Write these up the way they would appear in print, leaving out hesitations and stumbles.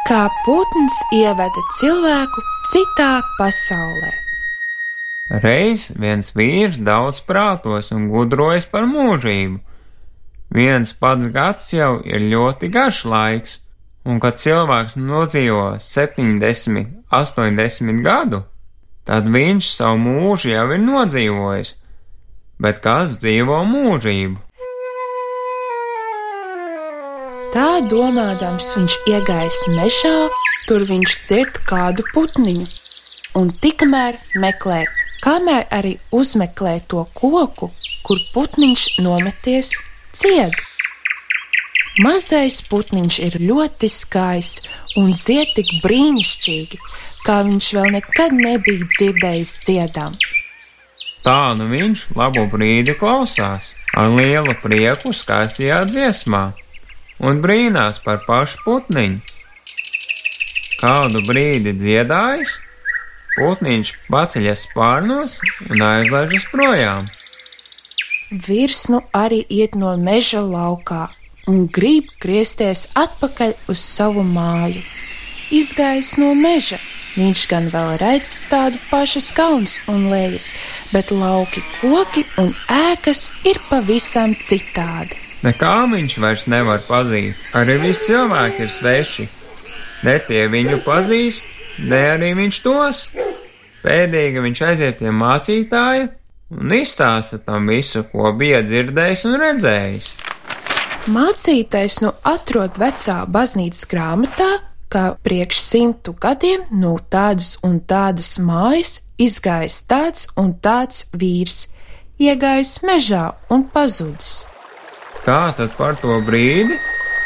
Kā putns ieveda cilvēku citā pasaulē. Reiz viens vīrs daudz prātos un gudrojas par mūžību. Viens pats gads jau ir ļoti garš laiks, un kad cilvēks nodzīvo 70, 80 gadu, tad viņš savu mūžu jau ir nodzīvojis, bet kāds dzīvo mūžību? Tā domādams viņš iegājis mežā, tur viņš dzird kādu putniņu, un tikmēr meklē, kamēr arī uzmeklē to koku, kur putniņš nometies cied. Mazais putniņš ir ļoti skaists un dzied tik brīnišķīgi, kā viņš vēl nekad nebija dzirdējis dziedam. Tā nu viņš labu brīdi klausās, ar lielu prieku skaistajā dziesmā, un brīnās par pašu putniņu. Kādu brīdi dziedājis, putniņš paceļas spārnos un aizlaižas projām. Vīrs nu arī iet no meža laukā un grib griezties atpakaļ uz savu māju. Izgājis no meža, viņš gan vēl redz tādu pašu kalnus un lejas, bet lauki, koki un ēkas ir pavisam citādi. Nekā viņš vairs nevar pazīt, arī visi cilvēki ir sveši. Ne tie viņu pazīst, ne arī viņš tos. Pēdīgi viņš aiziet pie mācītāja un izstāsta tam visu, ko bija dzirdējis un redzējis. Mācītājs nu atrod vecā baznīcas grāmatā, ka priekš 100 gadiem no tādas un tādas mājas izgājis tāds un tāds vīrs, iegājis mežā un pazudis. Tā tad par to brīdi,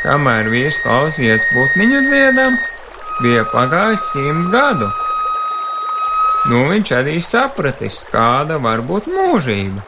kamēr vīrs klausījies putniņu dziedam, bija pagājis 100 gadu. Nu viņš arī sapratis, kāda var būt mūžība.